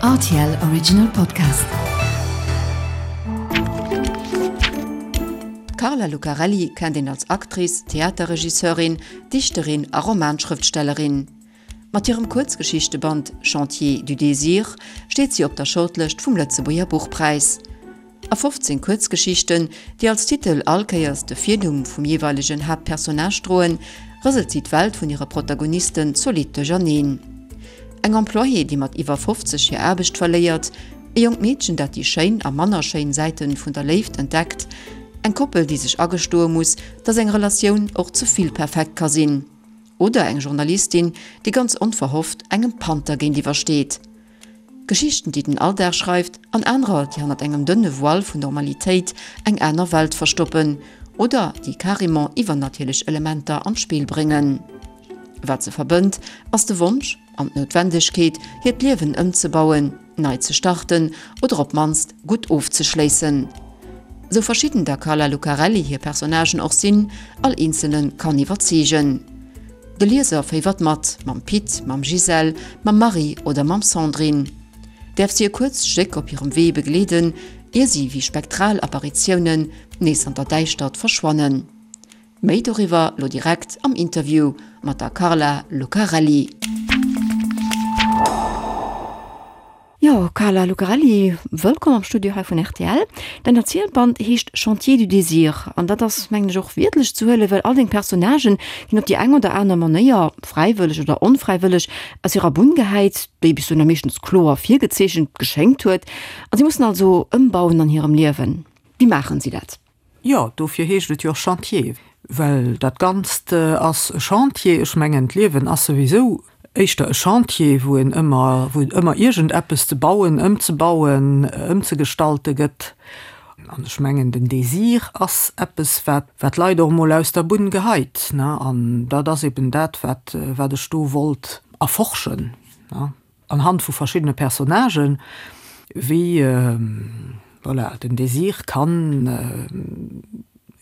Rtl Original Podcast. D'Carla Lucarelli kennt een als Actrice, Theaterregisseurin, Dichterin a Romanschrëftstellerin. Mat hirem Kuerzgeschichteband Chantier du désir steet si op der Shortlëscht vum Lëtzebuerger Buchpräis. A 15 Kuerzgeschichten, déi als Titel all Kéiers de Virnumm vum jeeweilegen Haaptpersonnage droen, rëselt si d'Welt vun hire Protagonisten zolidd duercherneen. Eng Employée, déi mat iwwer 50 hir Aarbecht verléiert, e jonkt Meedchen, dat déi schéin a manner schéin Säite vun der Léift entdeckt, eng Koppel, déi sech agestoe muss, dass eng Relatioun och ze vill perfekt ka sinn, oder eng Journalistin, déi ganz onverhofft engem Panther géintiwwer steet. Geschichten, déi den Alldag schreift, an anerer, déi hannert engem dënne Voile vun Normalitéit eng aner Welt verstoppen oder déi carrément iwwernatierlech Elementer an d'Spill bréngen. Wat se verbënnt, ass de Wonsch an d'Noutwendegkeet, hiert Liewen ëmzebauen, nei ze starten oder op d'mannst gutt ofzeschléissen. Sou verschidden der Carla Lucarelli hir Personnagen och sinn, all eenzelne kann iwwerzeegen. De Lieser féiwert mat, mam Pit, mam Gisèle, mam Marie oder mam Sandrine. Däerf si e kuerzt Stéck op hirem Wee begleeden, ier si wéi spektral Apparitiounen nees an der Däischtert verschwannen. Méi doriwwer lo direkt am Interview mat der Carla Lucarelli. Jo, Carla Lucarelli, wëllkomm am Studio hei vun rtl. Däin Erzielband heescht Chantier du désir an dat ass, mengen ech, och wiertlech ze huelen, well all deng Personnagen ginn op déi eng oder aner Manéier, fräiwëlleg oder onfräiwëlleg, aus hirer Bunn gehäit, déi bis dohinner meeschtens kloer virgezeechent geschéngt huet, a si mussen also ëmbauen an hirem Liewen. Wéi maachen si dat? Jo, dofir heescht et jo och Chantier, well dat Ganzt ass e Chantier. Ech mengen, d'Liewen ass souwisou éischter e Chantier, wou een ëmmer, wou et ëmmer iergendeppes ze bauen, ëmzebauen, ëmzegestalte gëtt. An ech mengen, den Désir ass eppes, wat, wat d'Leit och emol aus der Bunn geheit, ne. An dat ass eben dat, wat, wat ech do wollt erforschen, ne. Anhand vu verschiddene Personnagen, wéi, voilà, den Désir kann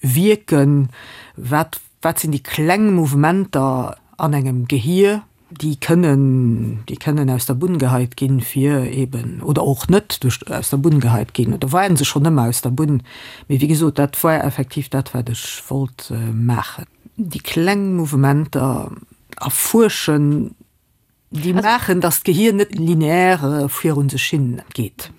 wierken, wat, wat sinn déi kleng Mouvementer an engem Gehier, déi kënnen, déi kënnen aus der Bunn geheit ginn, fir eben, oder och net duerch, aus der Bunn geheit ginn, oder waren se schonn ëmmer aus der Bunn, mee wéi gesot, dat war effektiv dat, wat ech wollt maachen, déi kleng Mouvementer erfuerschen. Déi maachen, datt d'Gehier net lineaire virun sech hin geet.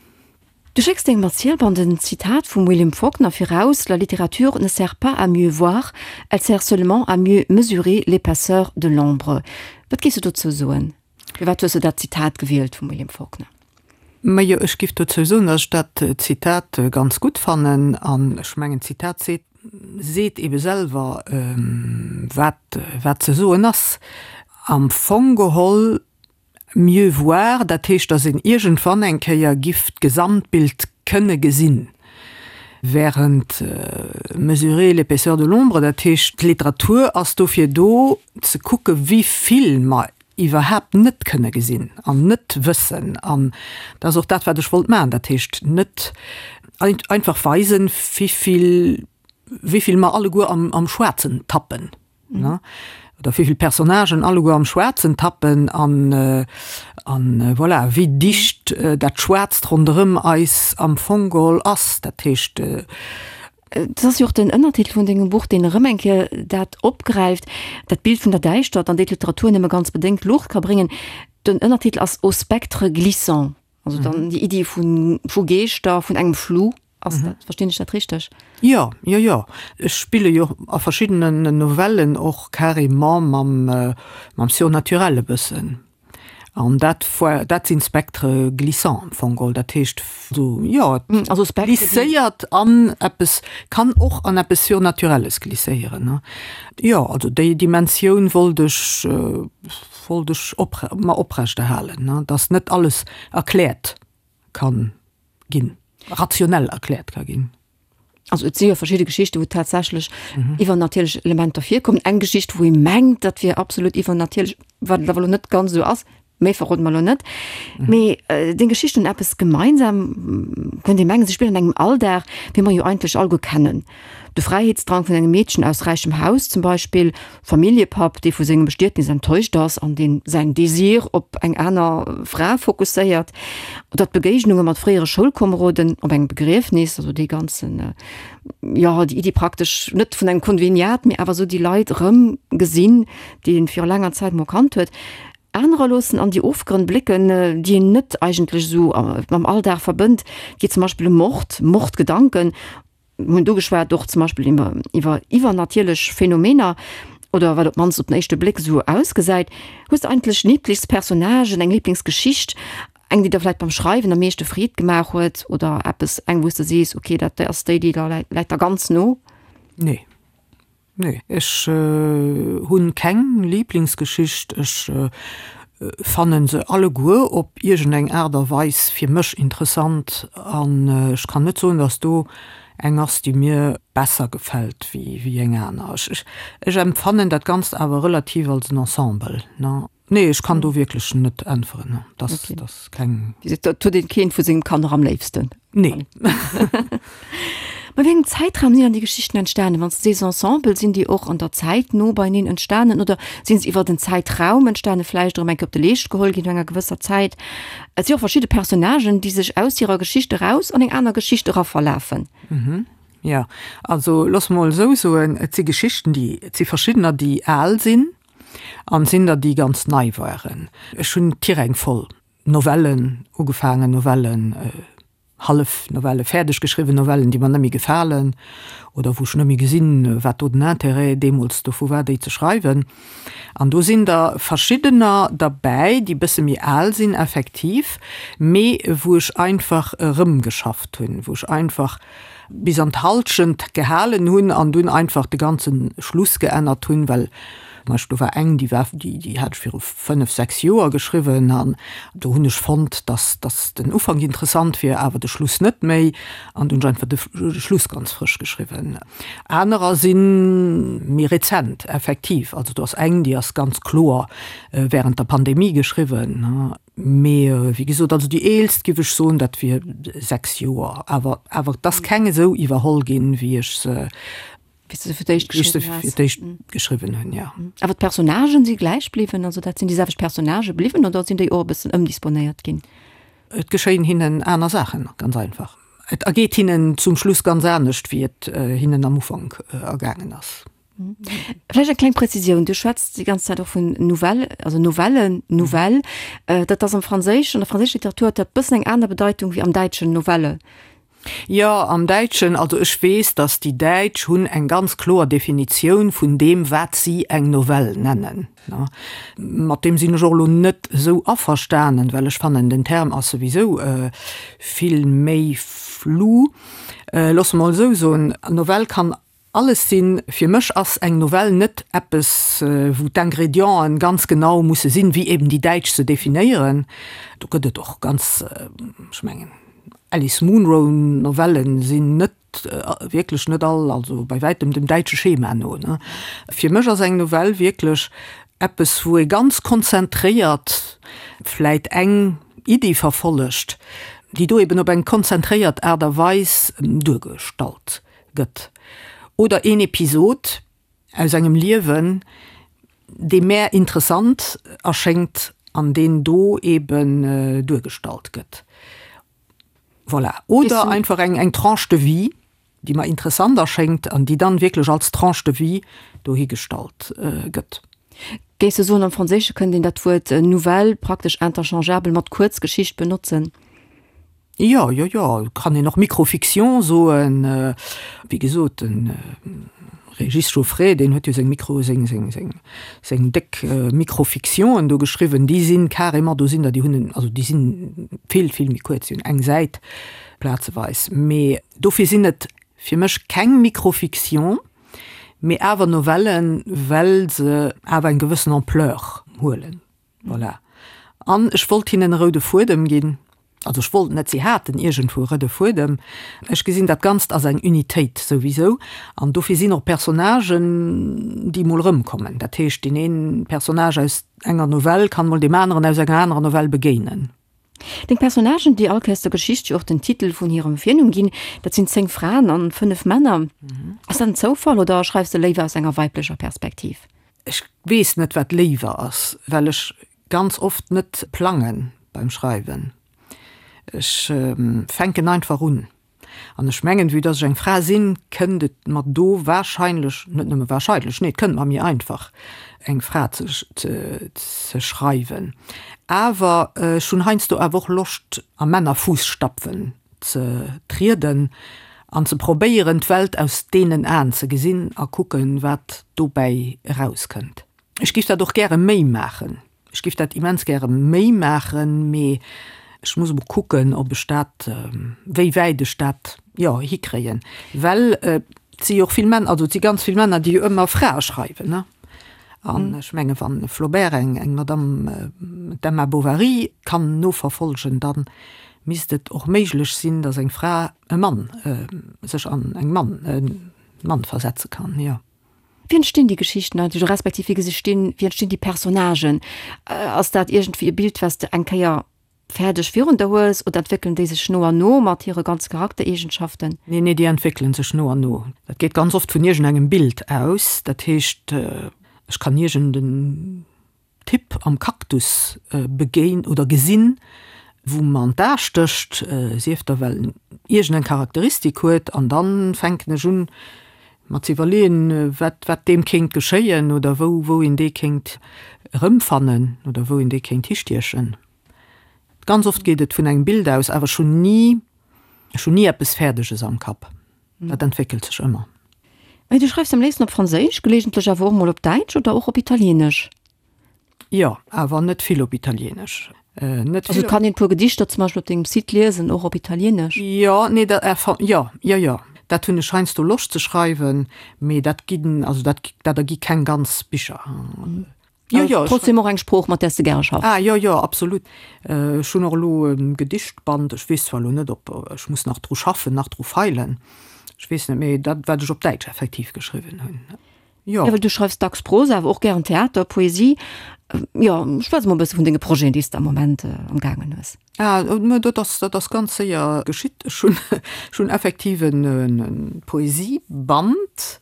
Du schécks dengem Erzielband en Zitat vum William Faulkner viraus, La littérature ne sert pas à mieux voir, elle sert seulement à mieux mesurer l'épaisseur de l'ombre. Wat géifs du dozou soen? Firwat hues du dat Zitat gewielt vum William Faulkner? Majo, ech giff dozou soen, datt ech dat Zitat ganz gutt fannen. An ech mengen, d'Zitat seet, seet ebe selwer, wat, wat ze soen ass. Am Fong geholl mieux voir, dat heescht, datt een iergendwann eng Kéier giff d'Gesamtbild kënne gesinn, während mesurer l'épaisseur de l'ombre, dat heescht, d'Literatur ass dofir do, ze kucke wéi vill mer iwwerhaapt net kënne gesinn an net wëssen. An dat ass och dat, wat ech wollt maachen, dat heescht net einfach weisen, wéi vill, wéi vill mer alleguer am, am Schwaarzen tappen, ne, oder wéi vill Personnagen alleguer am Schwaarzen tappen an, an voilà, wéi dicht dat Schwaarzt ronderëm eis am Fong geholl ass. Dat heescht. Et ass jo och den Ënnertitel vun dengem Buch, deen erëm eng Kéier dat opgräift, dat Bild vun der Däischtert, an déi d'Literatur nëmme ganz bedéngt Luucht ka bréngen. Den Ënnertitel ass Au spectre glissant, also dann déi Iddi vu vu Geeschter, vun engem Flou. Ass dat, verstinn ech dat richteg? Jo, jo, jo. Ech spille jo a verschiddenen Novellen och carrément mam mam Surnaturel e bëssen. An dat war, dat sinn Spectres glissants am Fong geholl. Dat heescht esou, jo, et Also Spectre, déi. glisséiert an eppes, kann och an eppes Surnaturelles glisséieren, ne. Jo, also déi Dimensioun wollt ech, wollt ech oprech, mer oprechterhalen, ne, dass net alles erkläert kann ginn, rationell erkläert ka ginn. Also et si jo verschidde Geschichten, wou tatsächlech iwwernatierlech Elementer virkommen. Eng Geschicht, wou ee mengt, dat wier absolut iwwernatierlech, wat et awer elo net ganz esou ass. Méi verrode mer elo net. Mee deng Geschichten hunn eppes gemeinsam, kënnt ee mengen, se spillen an engem Alldag, wéi mer jo eigentlech alleguer kennen. De Fräiheetsdrang vun engem Meedchen aus räichem Haus zum Beispill, Familljepapp, dee vu sengem Bestietnis enttäuscht ass an deen säin Désir op eng aner Fra fokusséiert, oder d'Begéignunge mat fréiere Schoulkomeroden op engem Begriefnis, also dee ganzen, jo, déi Iddi praktesch net vun engem Konveniat, mee awer esou déi Leit erëm gesinn, déi een viru laanger Zäit mol kannt huet. Anerer loossen an déi Ofgrënn blécken, déi een net eigentlech esou mam Alldag verbënnt. Et geet zum Beispill ëm Mord, Mordgedanken, mir hunn do geschwat, och zum Beispill iwwer iwwer iwwernatierlech Phänomener oder wat op d'mannst op den éischte Bléck esou ausgesäit. Hues de eigentlech Liblingspersonnagen, eng Liblingsgeschicht, eng déi der vläicht beim Schreiwen am meeschte Freed gemaach huet oder eppes, eng wou s de sees, okay, dat ass déi, déi läit der ganz no? Nee. Nee, ech hunn keng Lieblingsgeschicht. Ech fannen se alleguer op iergendeng Aart a Weis fir mech interessant an ech kann net soen, dass do eng ass, déi mir besser gefält wéi eng aner. Ech empfannen dat Ganzt awer relativ als en Ensemble. Nee, ech kann do wierklech net äntweren. Dat ass keng. Dat huet een keent vu sengem Kanner am léifsten. Nee. Mä wéi engem Zäitraum sinn dann déi Geschichten entstanen? Wann s de sees Ensemble, sinn déi och an der Zäit no beieneen entstanen oder sinn se iwwer en Zäitraum entstanen, vläicht erëm eng Kéier op de Leescht geholl ginn no enger gewësser Zäit? Et si och verschidde Personnagen, déi sech aus hirer Geschicht eraus an eng aner Geschicht eraverlafen. Jo, also looss mol esou soen, et si Geschichten, déi, et si verschiddener, déi al sinn, An sinn der déi ganz nei waren. Ech hunn Tiräng voll Novellen ugefaangen, Novellen, hallef Novellen, fäerdeg geschriwwen Novellen, déi mer net méi gefalen oder wou ech net méi gesinn, wat do den Intérêt deemools dovu war, déi ze schreiwen. An do sinn der verschiddener derbäi, déi bësse méi al sinn effektiv, mee wou ech einfach erëmgeschafft hunn, wou ech einfach bis an d'Halschent gehalen hunn an dunn einfach de ganze Schluss geännert hunn, well zum Beispill do war eng, déi war, déi, déi hat ech viru fënnef, sechs Joer geschriwwen an do hunn ech fonnt, dass, dass den Ufank interessant wier, awer de Schluss net méi an du hunn ech einfach de Schluss ganz frësch geschriwwen. Anerer si méi rezent, effektiv, also do ass eng, déi ass ganz kloer während der Pandemie geschriwwen. Mee wéi gesot, also déi eelst giff ech soen, dat wier 6 Joer. Awer awer et ass keng esou iwwerholl ginn, wéi ech se Wéi s de se fir d'éischt wéi ech se geschriwwen has. fir d'éischt geschriwwen hunn, jo. Awer d'Personnagen si gläich bliwwen? Also dat sinn déi selwecht Personnagë bliwwen oder sinn déi och e bëssen ëmdisponéiert ginn? Et geschéien hinnen aner Saachen, ganz einfach. Et ergeet hinnen zum Schluss ganz anescht, wéi et hinnen am Ufank ergaangen ass. Vläicht eng kleng Präzisioun, Du schwätz déi ganz Zäit och vun Nouvelle, also Novellen, Nouvelle. Dat ass am Franséischen, an der franséischer Literatur huet dat bëssen eng aner Bedeitung wéi am Däitschen Novelle. Jo, am Däitschen, also ech weess, datt déi Däitsch hunn eng ganz kloer Definitioun vun deem, wat si eng Novell nennen. Mat deem sinn ech och elo net esou averstanen, well ech fannen, den Term ass souwisou vill méi flou. Loosse mer esou soen, Novell kann Alles sinn. Fir mech ass eng Novell net eppes, wou d'Ingredienten ganz genau musse sinn, wéi eben déi Däitsch se definéieren. Do gëtt et och ganz, ech mengen, Alice Munro Novellen sinn net, wierklech net all, also bei wäitem dem däitsche Schema no. Fir mech ass eng Novell wierklech eppes, wou ee ganz konzentréiert vläit eng Iddi verfollegt, déi do eben op eng konzentréiert Aart a Weis duergestallt gëtt, oder een Episod aus engem Liewen, dee mär interessant erschéngt an deen do eben duergestallt gëtt. Voilà. Oder einfach eng eng Tranche de vie, déi mer interessant erschéngt an déi dann wierklech als Tranche de vie dohigestallt gëtt. Géifs de soen, am Franséische kënnt een dat Wuert Nouvelle praktesch interchangeabel mat Kuerzgeschicht benotzen? Jo, jo, jo, kann een och Micro-fiction soen. Wéi gesot, de Régis Jauffret, deen huet jo seng Micro, seng, seng, seng, seng déck Micro-fictionen do geschriwwen, déi sinn carrément, do sinn der, déi hunn en, also déi sinn vill, vill méi kuerz, déi hunn eng Säit plazeweis. Mee dofir sinn et fir mech keng Micro-fiction, mee awer Novellen, well se awer eng gewëssen Ampleur huelen. Voilà. An ech wollt hinnen e roude Fuedem ginn. Also ech wollt net, si haten iergendwou e roude Fuedem. Ech gesinn dat Ganzt als eng Unitéit souwisou an dofir sinn och Personnagen, déi mol erëmkommen. Dat heescht, deen een Personnage aus enger Novell kann mol deem aneren aus enger anerer Novell begéinen. Deng Personnagen, déi all Kéiers der Geschicht jo och den Titel vun hirem Virnumm ginn, dat sinn 10 Fraen an 5 Männer. Ass dat en Zoufall oder schreifs de léiwer aus enger weiblecher Perspektiv? Ech weess net, wat léiwer ass, well ech ganz oft net plangen beim Schreiwen. Ech fänken einfach un. An ech mengen, vue dass ech eng Fra sinn, kënnt et mer do wahrscheinlech, net nëmme wahrscheinlech, nee, et kënnt mer méi einfach, eng Fra ze ze schreiwen. Awer ech hunn heiansdo awer och Loscht, a Männerfuusstapfen ze trieden an ze probéieren, d'Welt aus deenen Aen ze gesinn a kucken, wat dobäi erauskënnt. Ech géif dat och gäre méi maachen. Ech géif dat immens gäre méi maachen, mee ech muss emol kucken, ob ech dat, wéi wäit ech dat, jo, hikréien. Well et si jo och vill Männer, also et si ganz vill Männer, déi jo ëmmer Frae schreiwen, ne? An ech menge wann e Flaubert eng, eng Madame, d'Emma Bovary kann noverfolgen, da misst et och méiglech sinn, datt eng Fra e Mann, sech an eng Mann, e Mann versetze kann, jo. Wéi entstinn déi Geschichten eigentlech, oder respektiv wéi gestinn, wéi entstinn déi Personnagen? Ass dat iergendwéi e Bild, wat s de eng Kéier fäerdeg virun der hues, oder entwéckelen déi sech no an no mat hire ganze Charaktereegenschaften? Nee, nee, déi entwéckelen sech no an no. Dat geet ganz oft vun iergendengem Bild aus. Dat heescht, ech kann iergend en Typ am Cactus begéin oder gesinn, wou mer an d'A stécht, sief da well en iergend eng Charakteristik huet, an dann fänken ech un mer ze iwwerleeën, wat wat deem kéint geschéien oder wou wou een dee kéint erëmfannen oder wou een dee kéint histiechen. Ganz oft geet et vun engem Bild aus, awer ech hunn ni ech hunn ni eppes Fäerdeges am Kapp, dat entwéckelt sech ëmmer. Mee du schreifs am léifsten op Franséisch, geleegentlech awer och mol op Däitsch oder och op Italieenesch? Jo, awer net vill op Italieenesch. Net vill. Also et kann een e puer Gedichter zum Beispill op dengem Site liesen, och op Italieenesch? Jo, nee, dat, enfin, jo, jo, jo, dat hunn ech heiansdo Loscht ze schreiwen, mee dat ginn, also dat, dat ergi keng ganz Bicher. Jo, jo. Trotzdem och eng Sprooch, mat där s de gäre schaffs. Ah, jo, jo, absolut. Ech hunn och elo e Gedichtband, ech weess zwar elo net, ob, ech muss nach dru schaffen, nach dru feilen, ech weess net, mee dat, wat ech op Däitsch effektiv geschriwwen hunn, jo. Jo, well du schreifs dacks Prosa, awer och gären Theater, Poesie. Jo, schwätz emol e bësse vun denge Projeten, déi s de am Moment am gaangen hues. Ah, mä dat ass, dat ass ganz séier geschitt. Ech hunn, ech hunn effektiv e Poesieband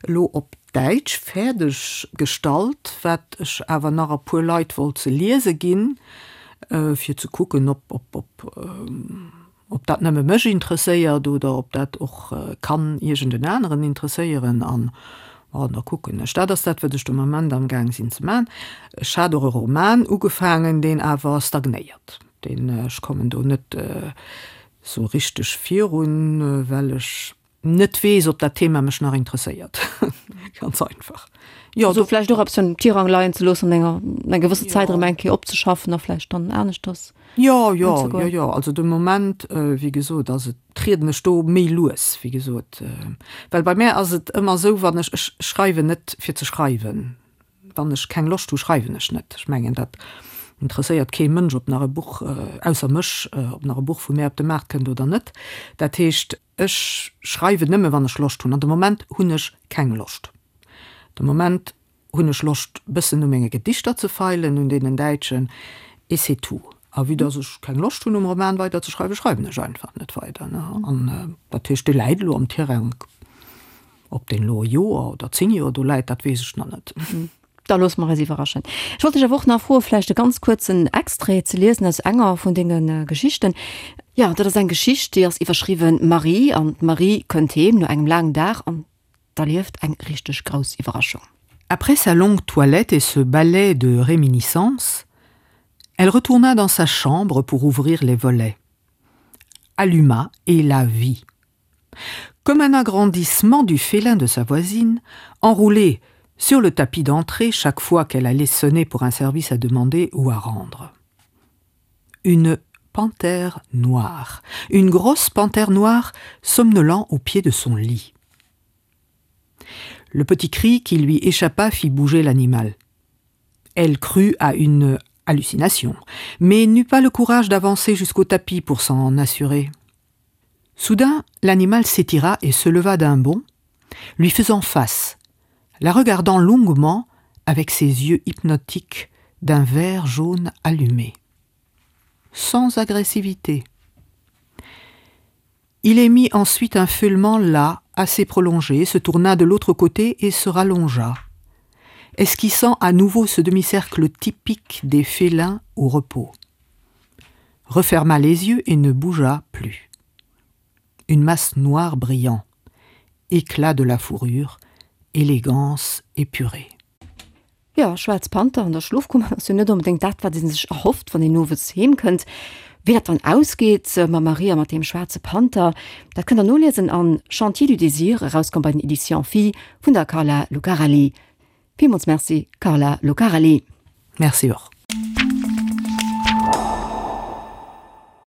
elo op Däitsch fäerdeg gestallt, wat ech awer nach e puer Leit wollt ze liese ginn, fir ze kucken, ob, ob, ob, ob dat nëmme mech interesséiert oder ob dat och kann iergend en aneren interesséieren. An, bon, da kucken ech. Dat ass dat, wat ech de Moment amgaang sinn ze maachen. Ech hat och e Roman ugefaangen, deen awer stagnéiert. Deen, ech kommen do net esou richteg virun, well ech net weess, ob dat Thema mech nach interesséiert. Ganz einfach. Jo, also vläicht och eppes am Tirang leien ze loossen an enger eng gewëssen Zäit erëm eng Kéier opzeschaffen a vläicht dann aneschters Jo, jo, jo, jo. Also de Moment, wéi gesot, ass et, trieden ech do méi lues, wéi gesot. Well bei mär ass et ëmmer esou, wann ech, ech schreiwen net fir ze schreiwen. Wann ech keng Loscht hu schreiwen ech net. Ech mengen dat interesséiert kee Mënsch, ob nach e Buch, ausser mech, ob nach e Buch vu mär op de Maart kënnt oder net. Dat heescht, Ech schreiwen nëmme wann ech Loscht hunn an de Moment hunn ech keng Loscht. De Moment hunn ech Loscht bëssen u menge Gedichter ze feilen, un deenen däitschen, et c'est tout. A vue dass ech keng Loscht hunn um Roman weider ze schreiwen, schreiwen ech einfach net weider. An dat heescht, dee läit elo am Tirang. Ob deen elo e Joer oder 10 Joer do läit, dat weess ech nach net. Da loosse mer eis iwwerraschen. Ech wollt dech awer och nach froen, vläicht e ganz kuerzen Extrait ze liesen aus enger vun denge Geschichten. Jo, dat ass eng Geschicht, déi ass iwwerschriwwen Marie. An d'Marie kënnt heem no engem laangen Dag an erlieft eng richteg grouss Iwwerraschung. Après sa longue toilette et ce ballet de réminiscences, elle retourna dans sa chambre pour ouvrir les volets. Alluma et la vit. Comme un agrandissement du félin de sa voisine, enroulé sur le tapis d'entrée chaque fois qu'elle allait sonner pour un service à demander ou à rendre. Une panthère noire, une grosse panthère noire somnolant au pied de son lit. Le petit cri qui lui échappa fit bouger l'animal. Elle crut à une. Hallucination, mais n'eut pas le courage d'avancer jusqu'au tapis pour s'en assurer. Soudain, l'animal s'étira et se leva d'un bond, lui faisant face, la regardant longuement avec ses yeux hypnotiques d'un vert jaune allumé. Sans agressivité. Il émit ensuite un feulement là, assez prolongé, se tourna de l'autre côté et se rallongea, esquissant à nouveau ce demi-cercle typique des félins au repos. Referma les yeux et ne bougea plus. Une masse noire brillant, éclat de la fourrure, élégance épurée. Jo, Schwaarz Panther an der Schlofkummer ass jo net onbedéngt dat, wat ee sech erhofft, wann een owes heem kënnt. Wéi dat dann ausgeet mam Marie a mat deem schwaarze Panther, dat kënnt der noliesen an Chantier du désir, erauskomm bei den Editions Phi vun der Carla Lucarelli. Villmools Merci, Carla Lucarelli. Merci och.